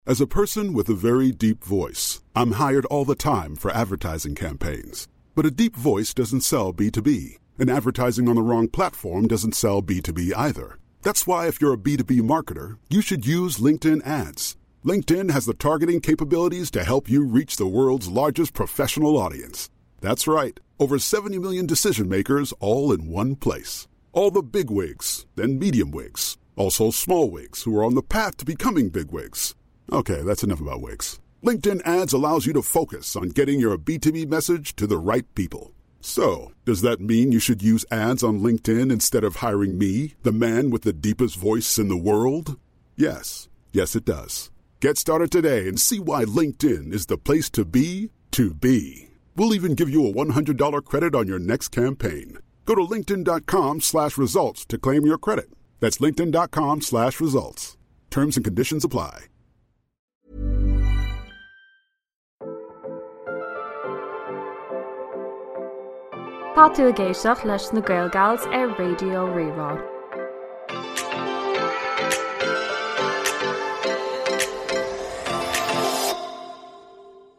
As a person with a very deep voice, I'm hired all the time for advertising campaigns. But a deep voice doesn't sell B2B, and advertising on the wrong platform doesn't sell B2B either. That's why if you're a B2B marketer, you should use LinkedIn ads. LinkedIn has the targeting capabilities to help you reach the world's largest professional audience. That's right, over 70 million decision makers all in one place. All the big wigs, then medium wigs, also small wigs who are on the path to becoming big wigs. Okay, that's enough about wigs. LinkedIn ads allows you to focus on getting your B2B message to the right people. So, does that mean you should use ads on LinkedIn instead of hiring me, the man with the deepest voice in the world? Yes. Yes, it does. Get started today and see why LinkedIn is the place to be to be. We'll even give you a $100 credit on your next campaign. Go to linkedin.com slash results to claim your credit. That's linkedin.com slash results. Terms and conditions apply. Tá tú ag éisteacht leis na Gaelgals ar Raidió Rí-Rá.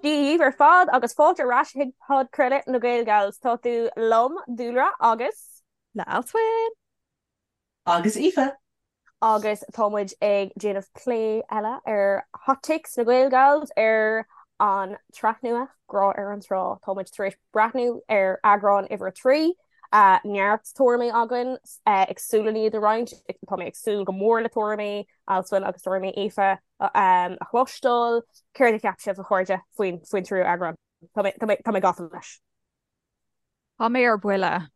Dia dhaoibh ar fad agus fáilte ar ais chuig podchraoladh na Gaelgals. Tá tú liom, Dúlra, agus. Le Alswyn! Agus Aoife! Agus tá muid ag déanamh plé eile ar Hot Takes na Gaelgals ar an tsraith nua, Grá ar an Trá. Tá muid tar éis breathnú ar eagrán uimhir a 3. Neart tuairimí againn, ag súil lena iad a roinnt. Tá mé ag súil go mór le tuairimí Alswyn agus tuairimí Aoife a chloisteáil. Céard a cheap sibh, a chairde, faoin tríú eagrán? Tá mé gafa leis. Tá mé ar buile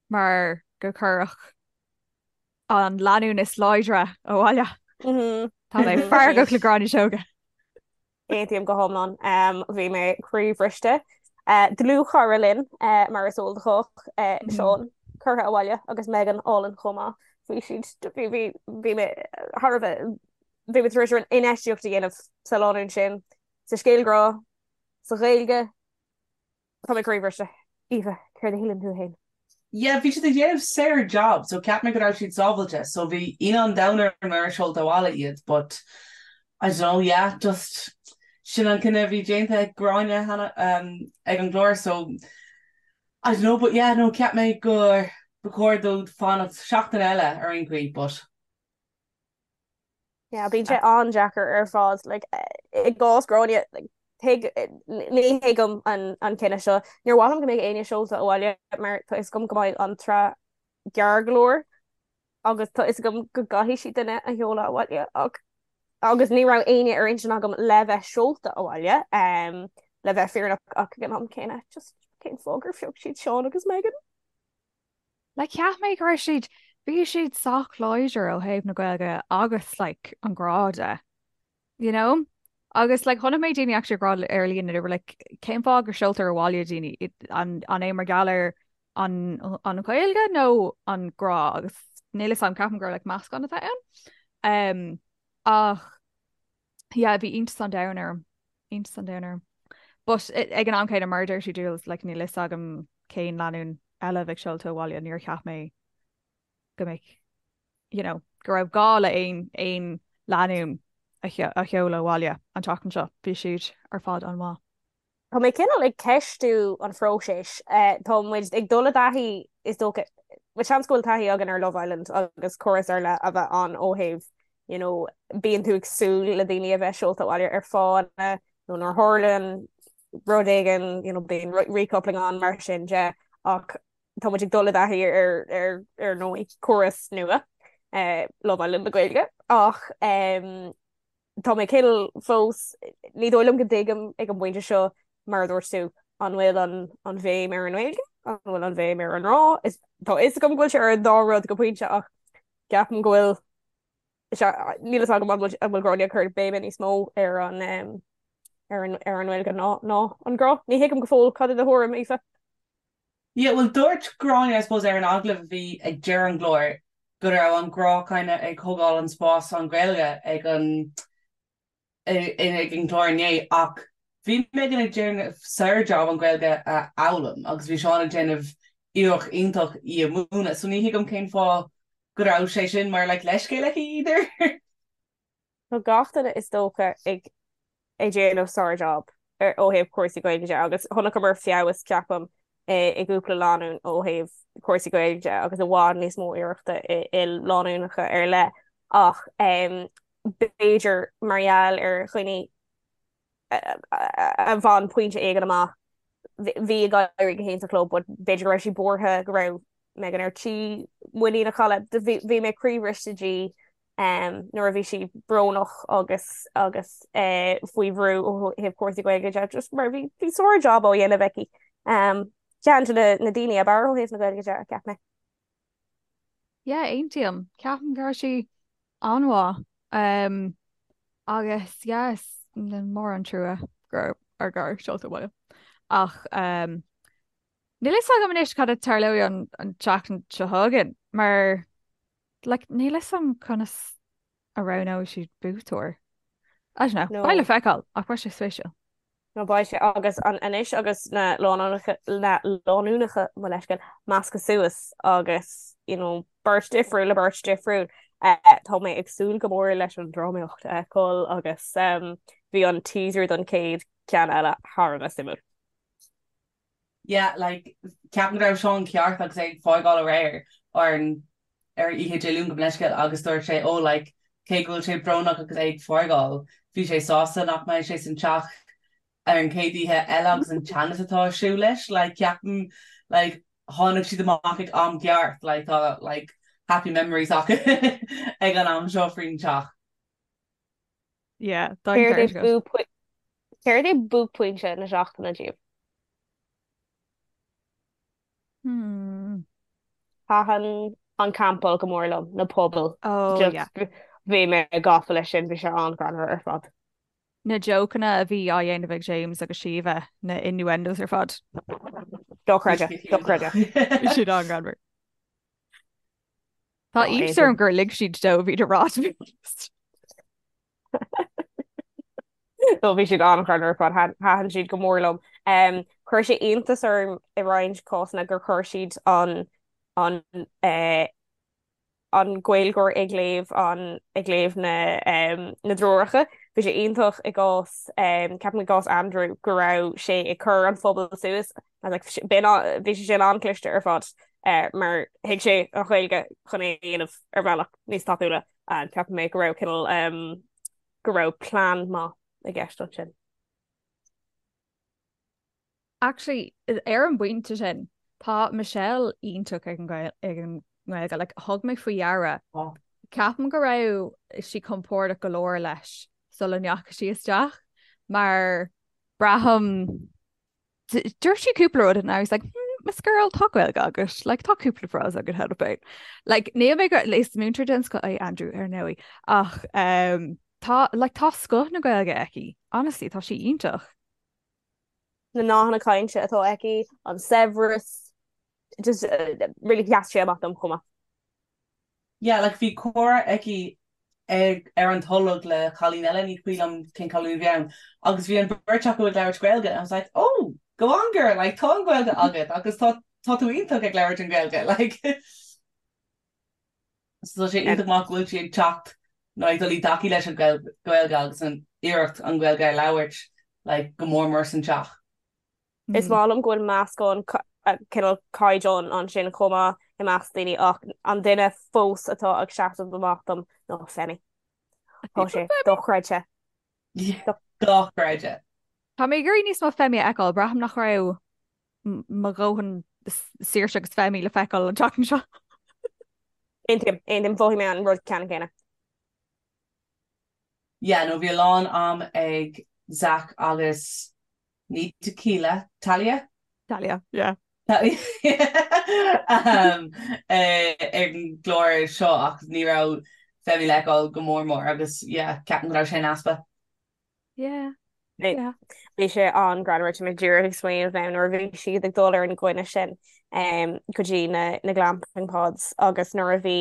mar gur cuireadh an lánúin is láidre abhaile. Tá mé feargach le Gráinne Seoige. Aontaím go hiomlán. Bhí mé croíbhriste. Dlúthchara linn, mar is eol do chách, Seán, curtha abhaile agus Megan álainn chomh maith. Bhí siad, bhí, bhí, bhí mé thar a bheith, bhí mé tar éis infheistíocht a dhéanamh sa lánúin sin, sa scéal grá, sa Ghaeilge. Tá mé croíbhriste. Aoife, céard a shíleann tú féin? Yeah, bhí siad ag déanamh saor job, so cheap mé go raibh siad sábhailte, so bhí ionadh an domhain orm nuair a seolta abhaile iad, but I don't know, yeah, just sin an cinneadh a bhí déanta ag Gráinne cheana ag an gclár, so I don't know, but yeah, no, cheap mé gur ba chóir dóibh fanacht seachtain eile ar aon chaoi, but. Yeah, bíonn sé an-deacair ar fad like, i gcás Gráinne like, thuig, ní thuigim an, an cinneadh seo. Níor mhaith liom go mbeadh éinne seolta abhaile mar tá fhios agam go mbeidh an tsraith gearr go leor agus tá fhios agam go gcaithfidh siad duine a sheoladh abhaile ach agus ní raibh éinne ar intinn agam le bheith seolta abhaile um, le bheith fírinneach ach ag an am céanna just cén fáth gur phioc siad Seán agus Megan. Like cheap mé go raibh siad, bhí siad sách láidir ó thaobh na Gaeilge agus like an grá de, you know? Agus like chonaic mé daoine actually ag rá ar líne they were like cén fáth go seoltar abhaile daoine an an é mar gheall ar an an Ghaeilge nó an grá agus níl fhios agam ceapaim gur like meascán atá ann. Um, ach yeah, bhí iontas an domhain orm. Iontas an domhain orm. But ag an am céanna mar a deir tú Jules, like, níl fhios agam cén lánúin eile a bheadh seolta abhaile, níor cheap mé go mbeadh, you know, go raibh gá le aon aon lánúin a a sheoladh abhaile an tseachtain seo. Bhí siad ar fad an-mhaith. Tá mé cineál ag ceistiú an phróiseas. Tá muid ag dul i dtaithí, is dócha, bhuel seans go bhfuil taithí againn ar Love Island agus córas ar leith a bheith ann ó thaobh, you know, bíonn tú ag súil le daoine a bheith seolta abhaile ar fáthanna nó nuair a tharlaíonn rud éigin, you know, bíonn recoupling ann mar sin de ach tá muid ag dul i dtaithí ar ar ar ndóigh córas nua, Love Island na Gaeilge ach Tá mé cineál fós, ní dóigh liom go dtuigim ag an bpointe seo, mar a dúirt tú, an bhfuil an an bhéim ar an nGaeilge, an bhfuil an bhéim ar an ngrá? Is tá fhios agam go bhfuil sé ar an dá rud go pointe ach ceapaim go bhfuil níl fhios agam an bhfuil an bhfuil Gráinne ag cur béime níos mó ar an ar an ar an nGaeilge ná ná an grá. Ní thuigim go fóill cad é do thuairim, Aoife. Yeah, bhuel dúirt Gráinne I suppose ar an agallamh a bhí ag deireadh an chláir go raibh an grá kinda ag thógáil an spás an Ghaeilge ag an ag an gclár inné ach bhí Megan ag déanamh saor job an Ghaeilge a fhoghlaim agus bhí Seán ag déanamh iarracht iontach í a mhúineadh so ní thuigim cén fáth go raibh sé sin mar like leithscéal aici either. Tá gach duine is dócha ag ag déanamh sár-jab ó thaobh cúrsaí Gaeilge de agus chonaiceamar feabhas, ceapaim, i gcúpla lánúin ó thaobh cúrsaí Gaeilge de agus i bhfad níos mó iarrachta i lánúineacha ar leith ach b'fhéidir mar gheall ar dhaoine a bhain pointe éigin amach bhí ag éirí go hiontach leo but b'fhéidir go raibh siad buartha go raibh Megan ar tí muinín a chailleadh. Bhí mé croíbhriste di nuair a bhí sí brónach agus agus faoi bhrú ó thaobh cúrsaí Gaeilge de just mar bhí bhí sár-jab á dhéanamh aici. Ceann de na daoine ab fhearr ó thaobh na Gaeilge de, cheap mé. Yeah, aontaím. Ceapaim go raibh sí an-mhaith. Um, agus yes, mór an trua go raibh ár gcara seolta abhaile. Ach um, níl fhios agam anois cad a tarlóidh an, an tseachtain seo chugainn, mar like, níl fhios agam conas a roghnóidh siad buaiteoir. I don't know, No. beidh le feiceáil, ach beidh sé spéisiúil. No beidh sé agus an anois agus na lánúineacha na lánúineacha mo leithscéal measctha suas agus you know beirt difriúil le beirt difriúil eh, tá mé ag súil go mór leis an drámaíocht a fheiceáil agus um, bhí an teaser don chéad ceann eile thar a bheith suimiúil. Yeah, like, ceapaim go raibh Seán ceart agus é ag fágáil aréir ar an ar oíche Dé Luain gabh mo leithscéal agus dúirt sé oh like cé go bhfuil sé brónach agus é ag fágáil bhí sé sásta nach mbeidh sé san teach ar an chéad oíche eile agus an teannas atá ar siúl leis like ceapaim like tháinig siad amach ag am ceart like tá like happy memories acu ag an am seo faoin teach. Yeah, tá an Céard é ceart agat. buaicphointe Céard é buaicphointe na seachtaine díobh? Hmm. Thaitin an campáil go mór liom, na pubaill. Oh, Just yeah. bhí mé gafa leis sin, bhí sé an-ghreannmhar ar fad. Na jokeanna a bhí á dhéanamh ag James agus Síomha, na innuendos ar fad. Dochreidte, dochreidte. Bhí siad an-ghreannmhar. Tá iontas orm gur lig siad dóibh iad a rá to be honest. No bhí siad an-ghreannmhar ar fad, thaitin siad go mór liom. Chuir sé iontas orm i roinnt cásanna gur chuir siad an an eh, an Gaeilgeoir ag léamh an ag léamh na na dtreoracha. Bhí sé iontach i gcás ceapaim i gcás Andrew go raibh sé ag cur an phuball suas like bhí sé sin an-chliste ar fad mar thuig sé an Ghaeilge chun é a dhéanamh ar bhealach níos tapúla. Ceapaim mé go raibh cineál go raibh plean maith i gceist ansin. Actually, ar an bpointe sin, tá Michelle iontach ag an nGaeilge. Like, thug mé faoi deara. Ceapaim go raibh sí compordach go leor leis sula ndeachaigh sí isteach mar braithim Dúirt sí cúpla rud and I was like, hmm, Miss Girl, tá Gaeilge agat, like, tá cúpla frása agat cheana féin. Like, níl mé go is múinteoir den scoth é Andrew ar ndóigh, ach um, tá, like, tá scoth na Gaeilge aici. Honestly, tá sí iontach. Na nathanna cainte atá aici, an saibhreas, just uh, really sheas sé amach dom chomh maith. Yeah, like bhí comhrá aici ag ar an tolg le cailín eile, ní cuimhin liom cén cailín a bhí ann, agus bhí an bheirt acu ag labhairt Gaeilge and I was like, oh, go on girl, like tá an Ghaeilge agat agus tá tá tú iontach ag labhairt an Ghaeilge, like. So tá sé iontach maith go bhfuil sí ag teacht nó ag dul i dtaithí leis an Ghaeilge agus an iarracht an Ghaeilge a labhairt like go mór mór san teach. Is maith liom go bhfuil meascán cineál caighdeán ansin chomh maith i measc daoine ach an duine fós atá ag seasamh amach dom ná Femi. Tá sé dochreidte. Dochreidte. Tá mé ag iarraidh níos mó Femi a fheiceáil, braithim nach raibh mo dhóthain Saoirse agus Femi le feiceáil an tseachtain seo. Aontaím, aontaím, mhothaigh mé an rud ceannann céanna. Yeah, no bhí a lán am ag Zach agus Ní Tequila, Talia? Talia, yeah. Talia um, ar an gclár seo ach ní raibh Femi le feiceáil go mór mór agus yeah, ceapaim go raibh sé in easpa. Yeah. Yeah. Bhí sé an-ghreannmhar tá mé díreach ag smaoineamh now nuair a bhí siad ag dul ar an gcoinne sin um, go dtí na, na glamping pods agus nuair a bhí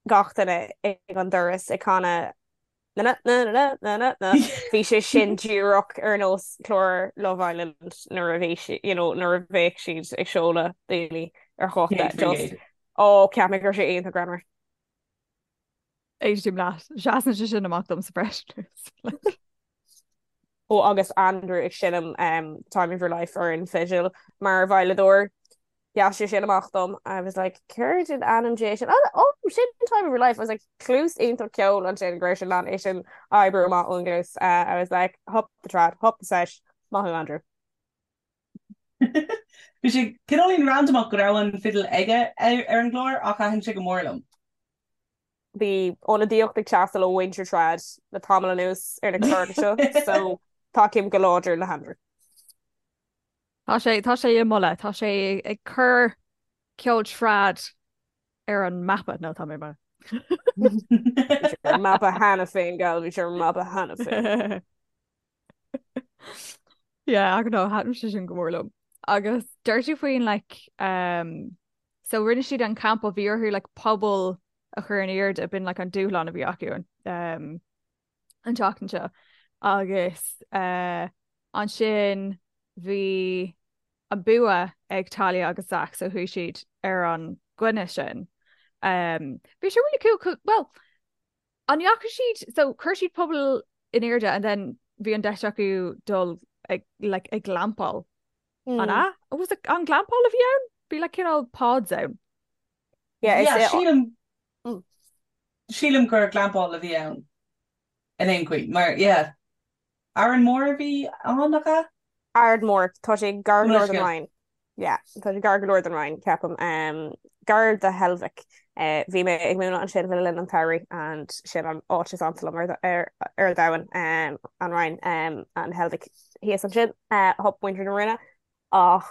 gach duine ag an doras ag canadh Na na na na na na na Bhí sé sin díreach ar nós clár Love Island nuair a bhí si you know nuair a bheadh siad ag seoladh daoine ar chóta just ó cheap mé go raibh sé iontach greannmhar. Aontaím leat. Seasann sé sin amach domsa freisin. Ó agus Andrew ag seinm um, Time of Your Life ar an fidil mar veidhleadóir. Sheas sé sin amach dom. I was like, céard in ainm Dé sin? Oh, oh, sin Time of Your Life. I was like, cluas iontach ceoil ansin go raibh sé in ann é sin a oibriú amach ón gcluas. Uh, I was like, hup the trad, hup the sesh. Maith thú, Andrew. Bhí sé cineáilín randamach go raibh an fidil aige ar an gclár ach thaitin sé go mór liom. Bhí ionadaíocht ag teastáil ó mhuintir trad le tamall anuas ar na cláracha seo so tacaím go láidir le hAndrew. Tá sé, tá sé i moladh, tá sé ag cur ceol trad ar an mapa, nó tá mé mar. Bhí sé ar an mapa cheana féin, gal, bhí sé ar an mapa cheana féin. Yeah, I don't know, thaitin sé sin go mór liom. Agus deir tú faoin like um, so rinne siad an campa bhí orthu like puball a chur in airde b'in like an dúshlán a bhí acu an um, an tseachtain seo agus uh, ansin bhí an bua ag Talia agus Zach so chuaigh siad ar an gcoinne sin. Um, bhí sé really cool, well, An ndeachaigh siad, so chuir siad puball in airde and then bhí an deis acu dul ag, like, ag glampáil. An ea? Was it an glampáil a bhí ann? Bhí like cineál pods ann. Yeah, Yeah, is sílim, sílim gur glampáil a bhí ann in aon chaoi, mar, yeah. Árainn Mhór a bhí ann, nach ea? Aird Mhór, tá sé gar go leor don Rinn. Yeah, tá sé gar go leor don Rinn, ceapaim. Gar do Heilbhic. Bhí mé ag múineadh ansin le linn an tsamhraidh and sin an áit is ansa liom ar ar domhan, an Rinn, an Heilbhic thíos ansin. Hup muintir na Rinne. Ach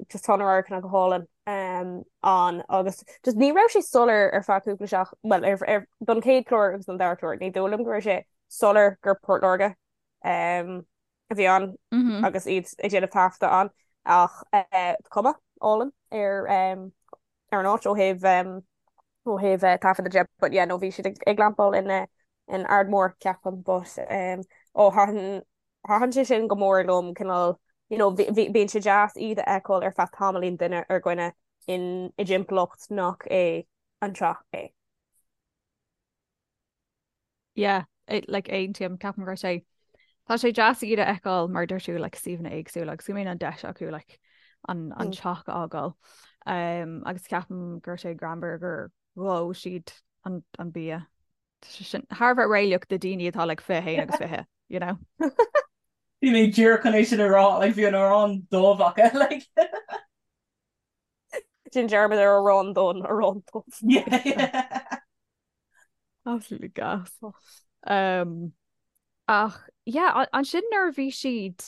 just tá na radharcanna go hálainn ann agus just ní raibh sé soiléir ar feadh cúpla seach, bhuel ar ar don chéad chlár agus don dara clár, ní dóigh liom go raibh sé soiléir gur Port Láirge a bhí ann agus iad ag déanamh taifeadta ann ach cuma álainn ar ar an áit ó thaobh ó thaobh taifeadta de but yeah no bhí siad ag glampáil in in Aird Mhór ceapaim but ó thaitin Thaitin sé sin go mór liom, cineál, you know, bíonn sé deas iad a fheiceáil ar feadh tamaillín duine ar dhuine in i dtimpeallacht nach é an teach é. Yeah, like aontaím, ceapaim go raibh sé, tá sé deas iad a fheiceáil mar deir tú like suíomhanna éagsúla agus go mbíonn an deis acu like an an teach a fhágáil. Um, agus ceapaim go raibh sé greannmhar gur dhóigh siad an an bia. Tá sé sin thar a bheith réalaíoch do daoine atá like 21 agus 20, you know. Bhí mé díreach chun é sin a rá, like bhí an arán dubh acu, like. Déan dearmad ar arán donn, arán dubh. Yeah, yeah. Absolutely gas. Um, ach, yeah, ansin nuair a bhí siad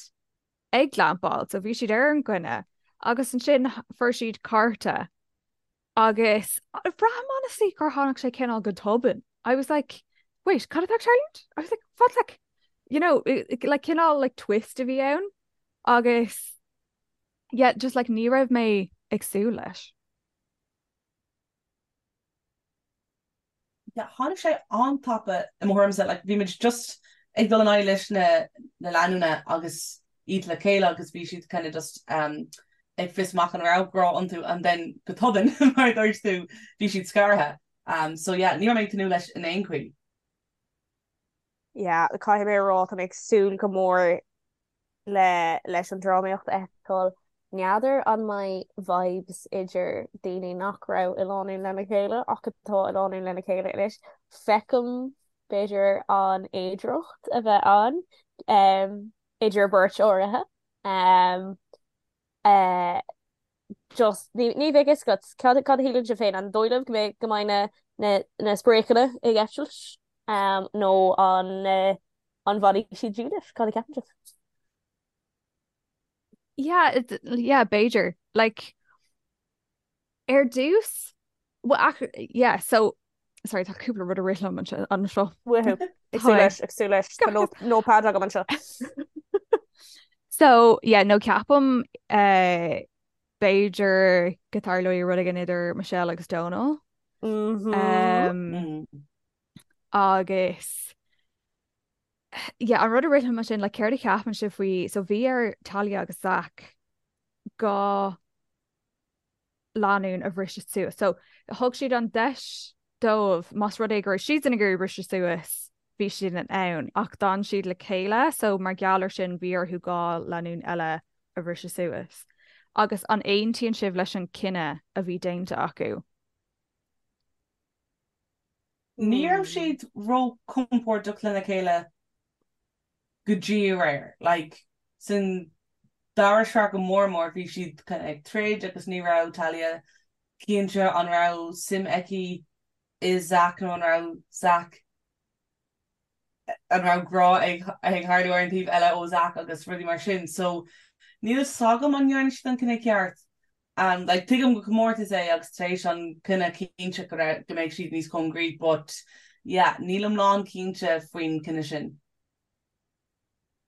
ag glampáil, so bhí siad ar an gcoinne, agus ansin fuair siad cárta Agus braithim honestly gur tháinig sé cineál go tobann. I was like, wait, cad atá ag tarlúint? I was like, what like, you know, like cineál like twist a bhí ann agus yeah, just like ní raibh mé ag súil leis. Yeah, tháinig sé an-tapa i mo thuairimse, like bhí muid just ag dul in aghaidh leis na na lánúna agus iad le chéile agus bhí siad kind of just um, ag fios amach an raibh grá iontu and then go tobann mar a dúirt tú bhí siad scartha. Um, so yeah, ní raibh mé ag tnúth leis in aon chaoi. Yeah, caithfidh mé a rá tá mé ag súil go mór le leis an drámaíocht a fheiceáil. N'fheadar an mbeidh vibes idir daoine nach raibh i lánúin lena chéile ach atá i lánúin lena chéile anois. Feicim b'fhéidir an fhéidearthacht a bheith ann um, idir beirt áirithe. Um, uh, just ní ní bheidh fhios agat cad cad a shíleann sibh féin an dóigh libh go mbeidh go mbeidh na na na spréachanna ag eitilt um, nó an uh, an bhfanfaidh siad dílis cad a cheapann sibh? Yeah, it, yeah, b'fhéidir. Like, ar dtús, well, ach, yeah, so, sorry, tá cúpla rud ag rith liom anseo. anseo. Woohoo. Ag súil leis, ag súil leis. Tá nó notepad agam anseo. So, yeah, no ceapaim uh, b'fhéidir go dtarlóidh rud éigin idir Michelle agus Donal. Mm-hmm. Um, Mm. agus yeah, an rud a rith liom ansin, like, céard a cheapann sibh faoi, so bhí ar Talia agus Zach 2 lánúin a bhriseadh suas. So thug siad an deis. dóibh más rud é go raibh siadsan ag iarraidh briseadh suas bhí siad in ann ach d'fhan siad le chéile so mar gheall ar sin bhí orthu 2 lánúin eile a bhriseadh suas. Agus an aontaíonn sibh leis an cinneadh a bhí déanta acu? Ní raibh siad ró-compordach lena chéile go dtí aréir. Like, san dara sraith go mór mór bhí siad kind of ag troid agus ní raibh Talia cinnte an raibh suim aici i Zach nó an raibh Zach an raibh grá ag ag tharlú ar an taobh eile ó Zach agus rudaí mar sin. So níl fhios agam an ndearna siad an cinneadh ceart. Um, like, tuigim gur comórtas é agus tar éis an cinneadh cinnte go raibh go mbeidh siad níos cóngaraí but yeah, nílim lán cinnte faoin cinneadh sin.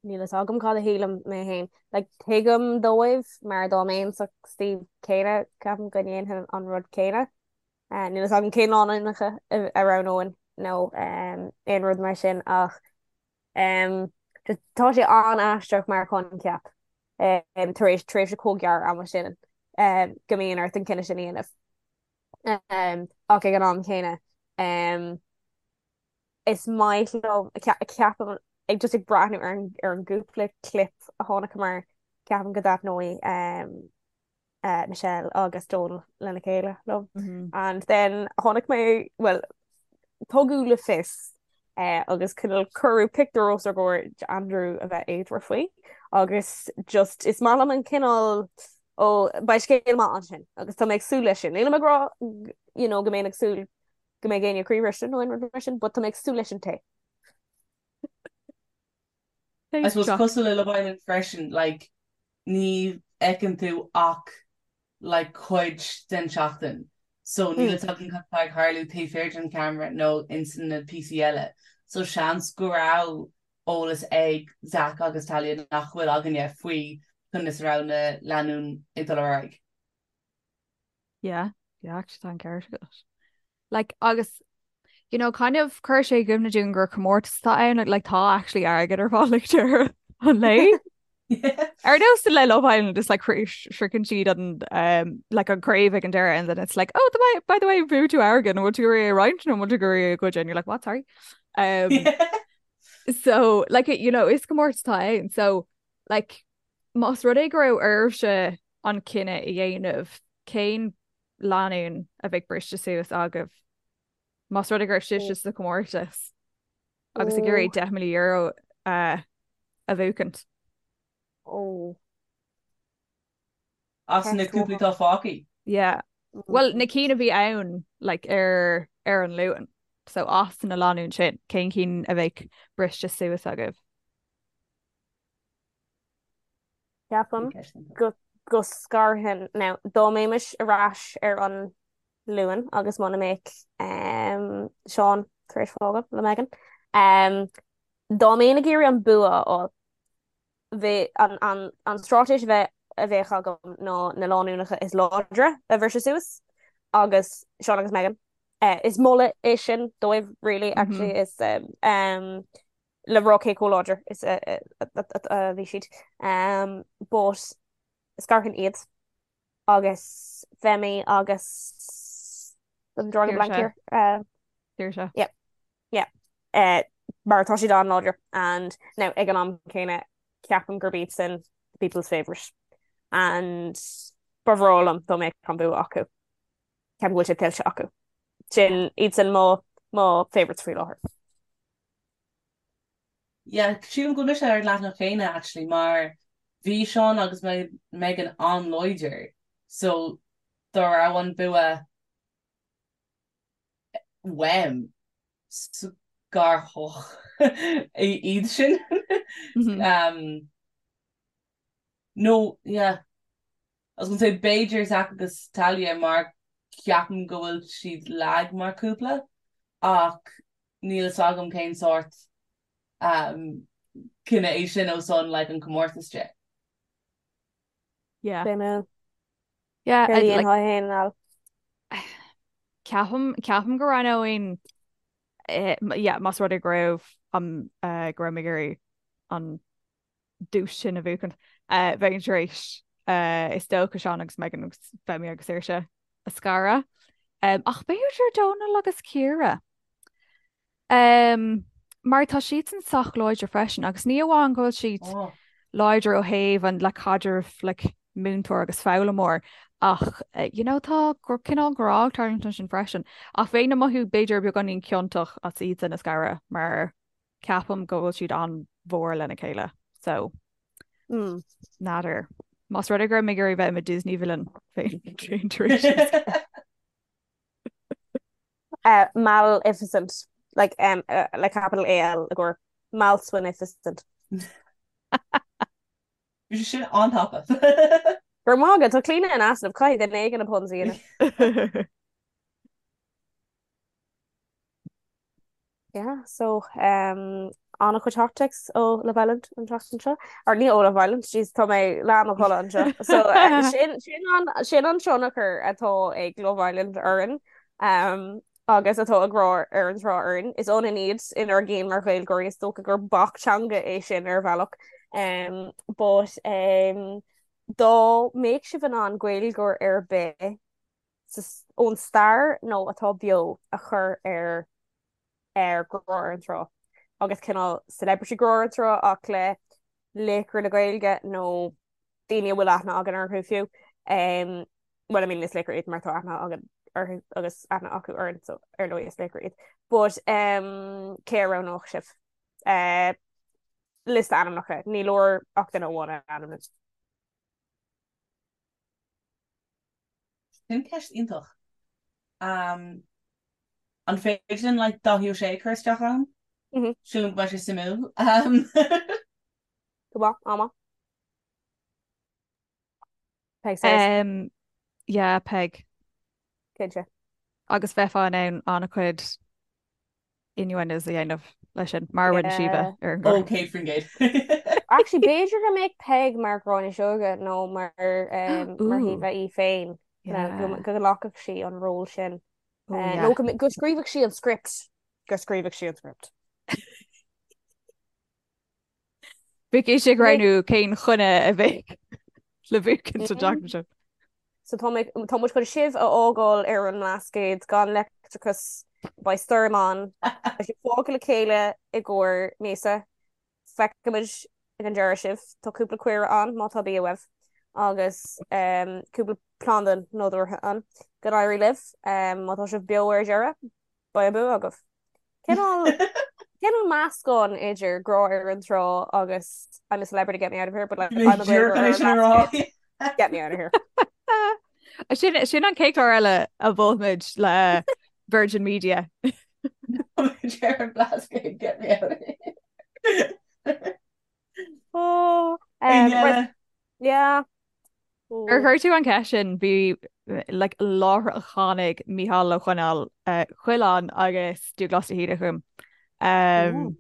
Níl fhios agam cad a shílim mé féin. Like, tuigim dóibh mar dá mbeinn sa suíomh céanna, ceapaim go ndéanfainn an rud céanna. Uh, níl fhios agam cén lánúineacha a roghnóinn nó um, aon rud mar sin ach um, just, tá sé an-aisteach mar choincheap um, tar éis tréimhse chomh gearr ama sin um, go mbíonn ort an cinneadh sin a dhéanamh. Um, ach ag an am céanna um, is maith liom ceapaim ag just ag breathnú ar an ar an gcúpla clip a chonaiceamar ceapaim go dtaitneoidh um, uh, Michelle agus Donal lena chéile liom. Mm -hmm. And then chonaic mé well tugadh le fios uh, agus cineál cuireadh pictiúr os ár gcomhair Andrew a bheith éadmhar faoi agus just is maith liom an cineál ó beidh scéal maith ansin agus tá mé ag súil leis sin. Nílim ag rá you know, go mbeinn ag súil go mbeidh éinne croíbhriste nó aon rud mar sin, but tá mé ag súil leis an tae. I suppose cosúil le Love Island freisin, like, ní fheiceann tú ach like cuid den tseachtain so níl fhios againn cad atá ag tarlú taobh thiar den cheamara nó ins na píosaí eile so seans go raibh eolas ag Zach agus Talia nach bhfuil againne faoi conas a raibh na lánúin ag dul ar aghaidh. Yeah, yeah, actually tá an ceart agat. Like, agus, you know, kind of chuir sé i gcuimhne dúinn gur comórtas atá ann, like, like, tá actually airgead ar fáil ag deireadh an lae. Ar nós le Love Island, it's like sroicheann siad an um, like an craobh ag an deireadh and then it's like, oh, the, by the way, bhuaigh tú airgead, an bhfuil tú ag iarraidh é a roinnt nó an bhfuil tú ag iarraidh é a ghoid and you're like, what, sorry? Um, so, like, you know, is comórtas atá ann. So, like, Más rud é go raibh oraibhse an cinneadh a dhéanamh, cén lánúin a bheadh briste suas agaibh? Más rud é go raibh sibhse sa chomórtas agus ag iarraidh €10,000 a bhuachaint. Ó. As na cúplaí atá fágtha? Yeah. Bhuel, na cinn a bhí ann like, ar, ar an Luan. So as na lánúin sin, cén cinn a bheadh briste suas agaibh? Ceapaim go go scarfainn now dá mbeimis ar ais ar an Luan agus muna mbeadh um, Seán tar éis fágáil le Megan. Um, dá mbeinn ag iarraidh an bua a fháil, bheadh an, an, an straitéis a bheith a bheadh agam ná na lánúineacha is láidre a bhriseadh suas agus Seán agus Megan. Uh, is moladh é sin dóibh really actually mm -hmm. is um, um, le rá cé chomh láidir is a bhí siad. But scarfainn iad agus Femi agus I'm drawing a blank here. Saoirse. Yeah. Yeah. Uh, mar tá siad an-láidir and now ag an am céanna ceapaim gurb iad sin the people's favourite and ba bhreá liom dá mbeadh an bua acu. Ceapaim go bhfuil sé tuillte acu. Sin iad sin mo mo favourites faoi láthair. Yeah, sílim go bhfuil mise ar an leathanach céanna actually mar bhí Seán agus Megan an-láidir so dá raibh an bua uaim scarfainn iad sin. Um, no, yeah. I was gonna say b'fhéidir Zach agus Talia mar ceapaim go bhfuil siad lag mar cúpla ach níl fhios agam cén sórt um, cinneadh é sin ó son like an comórtas de. Yeah. B'é mé. Yeah, Céard a I'd like dhéanfá féin Al? ceapaim ceapaim go roghnóinn eh, yeah, más rud é go raibh an eh, go raibh mé ag iarraidh an duais sin a bhuachaint. Bheinn tar éis is dócha Seán agus Megan agus Femi agus Saoirse a scaradh. Ach b'fhéidir Dónal agus Ciara. Um, mar tá siadsan sách láidir freisin agus ní amháin go bhfuil siad oh. láidir ó thaobh an le caidreamh like, múinteoir agus foghlaimeoir ach eh, you know, tá gur cineál grá ag tarlúint ansin freisin. Ach bheinn ag mothú b'fhéidir beagáinín ciontach as iadsan a scaradh mar ceapaim go bhfuil siad an-mhór lena chéile. So mm. N'fheadar. Más rud é go raibh mé ag iarraidh bheith i mo Disney villain féin tar éis. Uh, Maleficent, like, um, uh, like capital AL i gcomhair Malswinificent. Bhí sé sin an-tapa. Go raibh maith agat, tá Clíona in easnamh, caithfidh duine éigin na puns a dhéanamh. Yeah, so um, an-chuid hot takes ó Love Island an tseachtain seo. Or ní ó Love Island, jeez, tá mé leath i mo chodladh anseo. So uh, sin, sin, an, sin an tionchar atá ag Love Island orainn um, agus atá ag Grá ar an Trá orainn. Is ionann iad inár gcinn mar Ghaeilgeoirí is dócha gur bac teanga é sin ar bhealach. Um, but um, dá mbeadh sibh in ann Gaeilgeoir ar bith ón stair nó atá beo a chur ar ar Grá ar an Trá agus cineál celebrity Grá ar an Trá ach le laochra na Gaeilge nó daoine a bhfuil aithne againn orthu fiú. Um, well, I mean, is laochra iad mar tá aithne againn orthu agus aithne acu orainn, so ar ndóigh is laochra iad. But um, cé a roghnódh sibh? Uh, liosta ainmneacha, ní leor ach duine amháin a ainmniú. Sin ceist iontach. Um, an féidir linn like, Dáithí Ó Sé a chur isteach ann? Mm -hmm. Sílim go mbeidh sé suimiúil. Um... Go maith, ama. Peig says. Um, yeah, Peig. Cinnte. Agus bheifeá in ann an-chuid innuendos a dhéanamh leis sin, mar a rinne Síomha ar an gclár. Ó, 100%. Actually, b'fhéidir go mbeadh Peig mar Ghráinne Seoige nó mar mar Shíomha í féin go nglacfadh sí an ról sin. Nó go scríobhadh sí an script. Go scríobhadh sí an script. Bheadh ise ag roghnú cén choinne a bheadh le buachan sa tseachtain seo. So tá mé, tá muid chun sibh a fhágáil ar an mBlascaod gan leictreachas, beidh stoirm ann, beidh sibh fágtha le chéile i gcomhair míosa, feicfimid ag an deireadh sibh, tá cúpla caora ann má tá bia uaibh agus cúpla planda nádúrtha ann. Go n-éirí libh, má tá sibh beo ar deireadh, beidh an bua agaibh. Cineál cineál meascán idir Grá ar an Trá agus I'm a celebrity get me out of here but like I'm a Gaeilgeoir ar an mBlascaod get me out of here. Sin sin an chéad chlár eile a mholfaimid le Virgin Media. Ar an Blascaod get me out of here. Oh, um, right. Yeah. Ar chuir tú an cheist sin, bhí like láithreach tháinig Mícheál Ó Coileáin Coileáin agus Dúghlás de hÍde chugam. Um,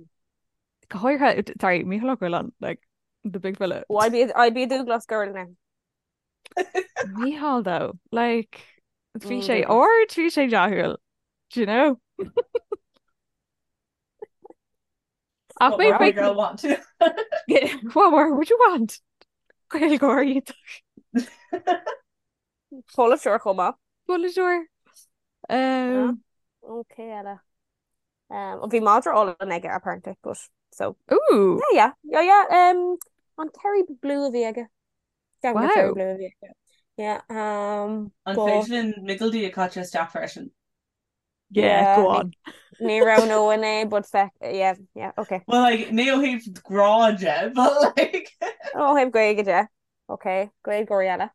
go háirithe, sorry, Mícheál Ó Coileáin, like the big fella. Well, I'd be I'd be a Dúghlás girl now. Mícheál though, like bhí mm, sé ard, bhí sé dathúil, do you know? Ach wait, wait, girl want? What more would you want? Gaeilgeoir iontach. Polaiteoir chomh maith. Polaiteoir. Um, Ok eile. Um, bhí madra álainn aige apparently, but so. Ooh. Yeah, yeah, yeah, yeah. Um, an Kerry Blue a bhí aige. Wow. Kerry Blue a bhí aige. Yeah, um, An féidir linn Micil D a chaitheamh isteach freisin? Yeah, go on. Ní roghnóinn é, but feck, yeah, yeah, okay. Well, like, ní ó thaobh grá de, but like... Ó thaobh Gaeilge de. Okay, Gaeilgeoirí eile.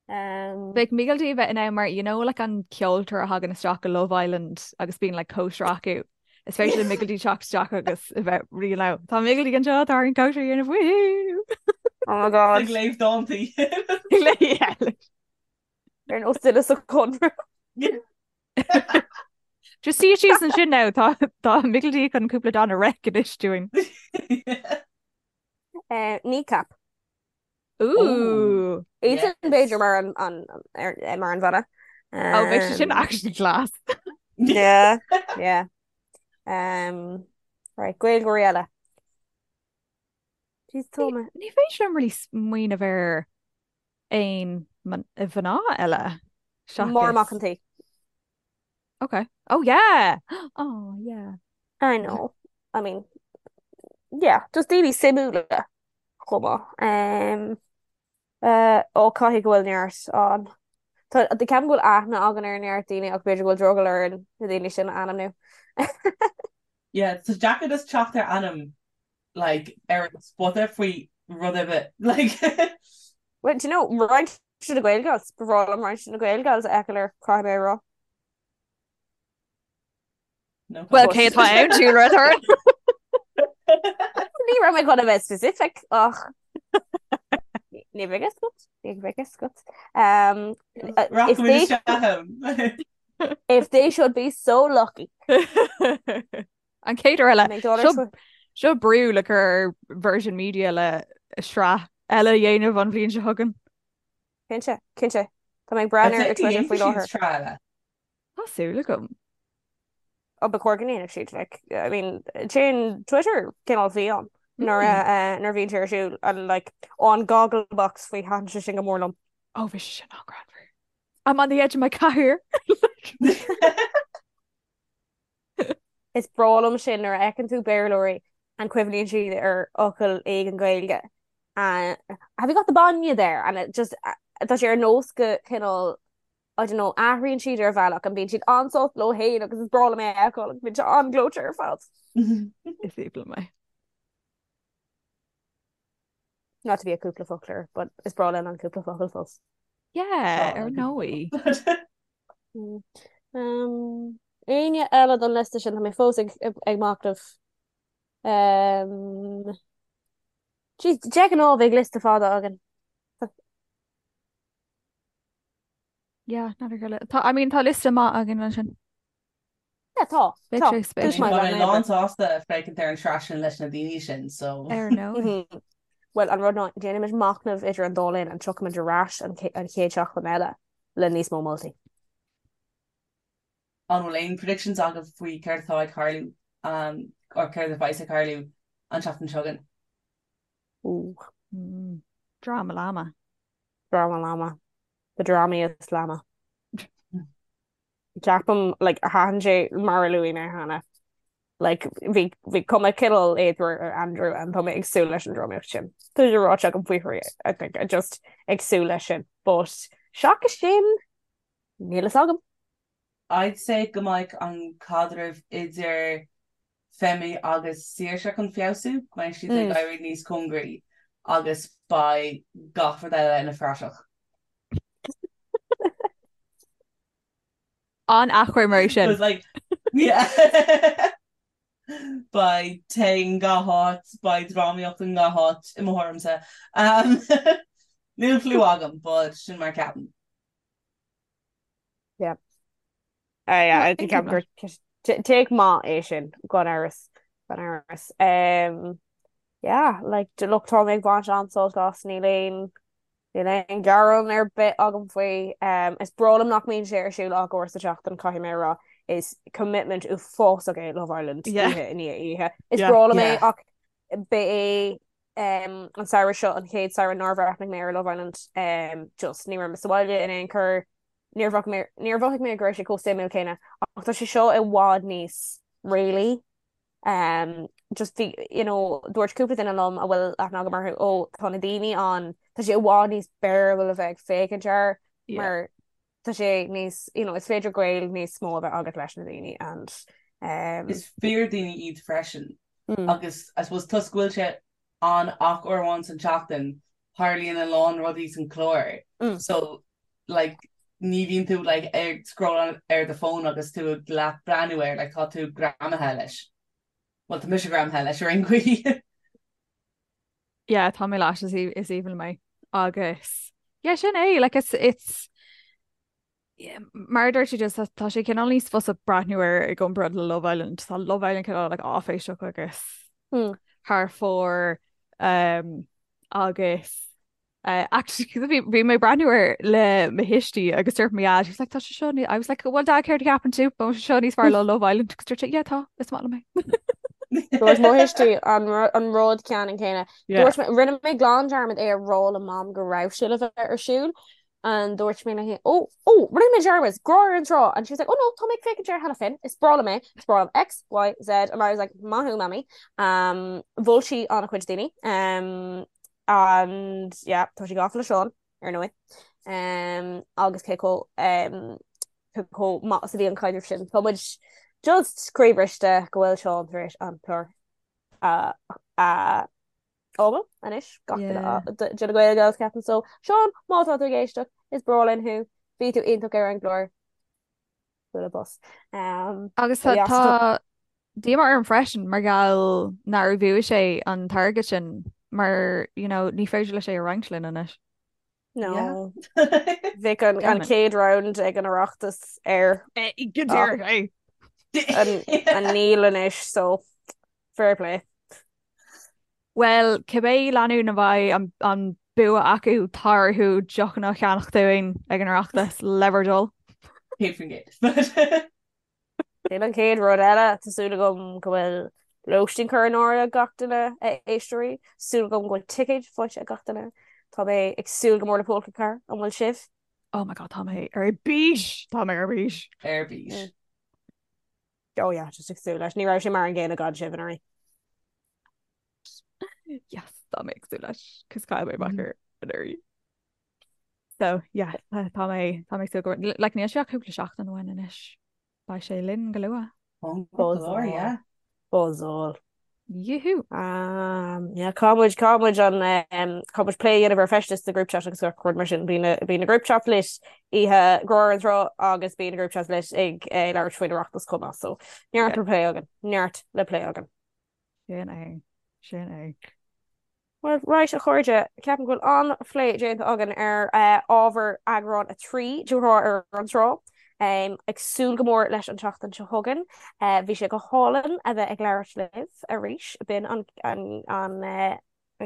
Um, Bheadh Micil D a bheith in ann mar, you know, like an ceoltóir a thagann isteach go Love Island agus bíonn like cóisir acu. Is féidir le Micil D teacht isteach agus a bheith you know, tá Micil D anseo, tá an cóisir a dhéanamh, woohoo! Oh my God. Ag léamh dántaí. Yeah. Ar nós duine sa Chonradh. Just suí síos ansin now, tá tá Micil D chun cúpla dán a reic anois dúinn. Eh, Kneecap. Ooh. Iadsan b'fhéidir mar an an ar eh, mar an bhanna. Oh, bheadh sé sin actually class. Yeah, yeah. Um, right, Gaeilgeoirí eile. Jeez, tá mé. Ní féidir liom really smaoineamh ar aon mhná eile Máire Mac seachas an tSaoi. Okay. Oh yeah! Oh yeah. I know. I mean, yeah, just daoine suimiúla chomh maith. Um, uh, ó caithfidh go bhfuil neart ann. Tá ceapaim go bhfuil aithne againn ar neart daoine ach b'fhéidir go bhfuil drogall orainn na daoine sin a ainmniú. Yeah, tá deacair just teacht ar ainm like ar an spota faoi rud ar bith like. Well, do you know, roinnt de na Gaelgals, ba bhreá liom roinnt de na Gaelgals a fheiceáil air, caithfidh mé a rá. No Well, cé atá ann, Julia Redhorn? Ní raibh mé chun a bheith specific ach ní bheidh fhios agat, ní bheidh fhios agat. Um, if they, if they should be so lucky. An chéad uair eile, seo brú le cur ar Virgin Media le sraith eile a dhéanamh an bhliain seo chugainn. Cinnte, cinnte. Tá mé ag breathnú ar Twitter faoi láthair. Sraith eile. Tá súil agam. Ó ba chóir go ndéanfadh siad, like, I mean, téann Twitter cineál fiáin nuair a nuair a bhíonn sé ar siúl and like, ó an Gogglebox faoi thaitin sé sin go mór liom. Ó bhí sé sin an-ghreannmhar. I'm on the edge of my cathaoir. Is breá liom sin nuair a fheiceann tú Béarlóirí and cuimhníonn siad ar fhocal éigin Gaeilge and have you got the bainne there? And it just tá sé ar nós go cineál I don't know athraíonn siad ar bhealach and bíonn siad an-sásta leo féin agus is breá liom é a fheiceáil agus bíonn sé an-ghleoite ar fad. Is aoibhinn liom é. Not to be a cúpla foclóir, but is breá linn an cúpla focal fós. Yeah, ar ndóigh. Um, éinne eile don liosta sin tá mé fós ag, ag, ag machnamh. Um, Jeez, de ghnáth bheadh liosta fada againn. Yeah, never go Tá, I mean, tá liosta maith againn ansin. Yeah, tá. Beidh sé spéisiúil. Tá mé lán sásta féachaint ar an tsraith sin leis na daoine sin, so. Ar ndóigh. Bhuel, an rud ná, déanfaimid machnamh idir an dá linn and tiocfaimid ar ais an chéad seachtain eile le níos mó moltaí. An bhfuil aon predictions agaibh faoi céard atá ag tarlú or céard a bheas ag tarlú an tseachtain seo chugainn? Ooh. Drama llama. Drama llama. The dramiest llama. Ceapaim like thaitin sé mar a luaigh mé cheana. Like bhí bhí cuma cineál éadmhar ar Andrew and tá mé ag súil leis an drámaíocht sin. Tá sé ráite agam faoi thrí I think I just ag súil leis sin. But seachas sin níl fhios agam. I'd say go mbeidh an caidreamh idir Femi agus Saoirse chun feabhsú, go mbeidh siad ag éirí níos cóngaraí agus beidh gach rud eile ina phraiseach. An-achoimre é sin. Like, yeah. Beidh tae i ngach áit, beidh drámaíocht i ngach áit i mo thuairimse. Um, níl clue agam, but sin mar ceapaim. Yeah. Uh, yeah, I think I'm gur take maith é sin gan amhras gan amhras. Um, yeah, like look tá mé ag baint an-sult as níl aon níl aon gearán ar bith agam faoi. Um, is breá liom nach mbíonn sé ar siúl ach uair sa tseachtain caithfidh mé a rá is commitment uafásach é Love Island Yeah. oíche i ndiaidh oíche. Is Yeah. breá liom é Yeah. ach ba é um, an samhradh seo an chéad samhradh nár bhreathnaigh mé ar Love Island um, just ní raibh mé sa bhaile in aon chor Níor mhothaigh mé, níor mhothaigh mé go raibh sé chomh suimiúil céanna, ach tá sé seo i bhfad níos réalaí. Um, just bhí, you know, dúirt cúpla duine liom a bhfuil aithne agam orthu, ó, tá na daoine ann, tá sé i bhfad níos bearable a bheith ag féachaint air, Yeah. mar tá sé níos, you know, is féidir gaol níos mó a bheith agat leis na daoine and, um, Is fíordhaoine iad freisin mm, agus I suppose toisc go bhfuil sé ann ach uair amháin san tseachtain, tarlaíonn a lán rudaí san chlár. mm, So like ní bhíonn tú like ag scroll ar do phone agus tú ag leath breathnú air like tá tú greamaithe leis. Well tá mise greamaithe leis ar aon chaoi. Yeah, tá mé leis is is aoibhinn liom é. Agus yeah, sin é like it's it's yeah, mar a dúirt tú just tá sé cineál níos fusa breathnú air i gcomparáid le Love Island. Tá Love Island cineál like áiféiseach agus mm. thar fóir um, agus Actually bhí bhí mé ag breathnú air le mo thuistí agus dúirt mo dhaid, he was like, tá sé seo ní-" I was like, well dad céard a cheapann tú? Tá sé seo níos fearr le Love Island agus dúirt sé, yeah tá, is maith liom é. Dúirt mo thuistí an ru- an rud ceannann céanna. Yeah. Dúirt mé, rinne mé glan dearmad é a rá le mam go raibh sé le bheith ar siúl. And dúirt mé léi, oh, oh, rinne mé dearmad, Grá ar an Trá! And she was like, oh no, tá mé ag féachaint air cheana féin, is breá liom é, is breá liom X, Y, Z, and I was like, maith thú, Mamaí. Um, mhol sí an-chuid daoine. Um, and yeah, tá sí gafa le Seán, ar ndóigh. Um, agus cé chomh um, cé chomh maith is a bhí an caidreamh sin. Tá muid just croíbhriste go bhfuil Seán tar éis an clár a a fhágáil anois gach duine de na Gael Gals ceapaim so Seán má tá tú ag éisteacht is breá linn thú bhí tú iontach ar an gclár bualadh bos. Um, Agus tá tá díomá orm freisin mar gheall nár bhuaigh sé an t-airgead sin mar you know, ní féidir leis é a roinnt linn anois. No. Bhí an an chéad round ag an Oireachtas air. Go díreach é. An níl anois so fair play. Bhuel, cibé lánúin a bheidh an bua acu, tá orthu deochanna a cheannach dúinn ag an Oireachtas, le bhur dtoil. 100%. Sin an chéad rud eile, tá súil agam go bhfuil lóistín curtha in áirithe ag gach duine, a éisteoirí. Súil agam go bhfuil ticéid faighte ag gach duine. Tá mé ag súil go mór le Pólca Car, an bhfuil sibh? Oh my god, tá mé ar bís! Tá mé ar bís. Ar bís. Oh yeah, just ag súil leis. Ní raibh sé mar an gcéanna gan sibh anuraidh. Yes, tá mé ag súil leis, cos chaill mé amach air anuraidh. So, yeah, tá mé tá mé ag súil go like níl sé ach cúpla seachtain uainn anois. Beidh sé linn go luath. Go yeah. Buzzáil. Yoohoo! Um, yeah, caithfidh muid caithfidh muid an um, caithfidh muid plé a dhéanamh ar feistis sa group chat agus gach rud mar sin. Bíonn na bíonn na group chat lit oíche Ghrá ar an Trá agus bíonn na group chat lit ag eh, labhairt faoin Oireachtas chomh maith. So neart le plé againn, neart le plé againn. Sin é, sin é. Bhuel, right, a chairde, ceapaim go bhfuil an-phlé déanta againn ar ábhar eagrán 3 de Ghrá ar an Trá. Ag súil go mór leis an tseachtain seo chugainn. Bhí sé go hálainn a bheith ag labhairt libh arís. B'in an an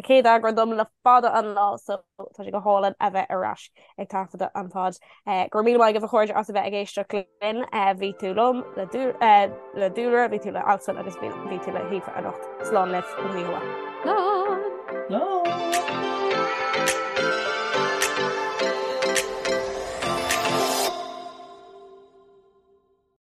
chéad eagrán dom le fada an lá so tá sé go hálainn a bheith ar ais ag taifeadadh an pod. Go raibh míle maith agaibh a chairde as a bheith ag éisteacht linn. Bhí tú liom le le Dúlra, bhí tú le Alswyn agus bhí tú le hAoife anocht. Slán libh, go dtí Slán! Slán!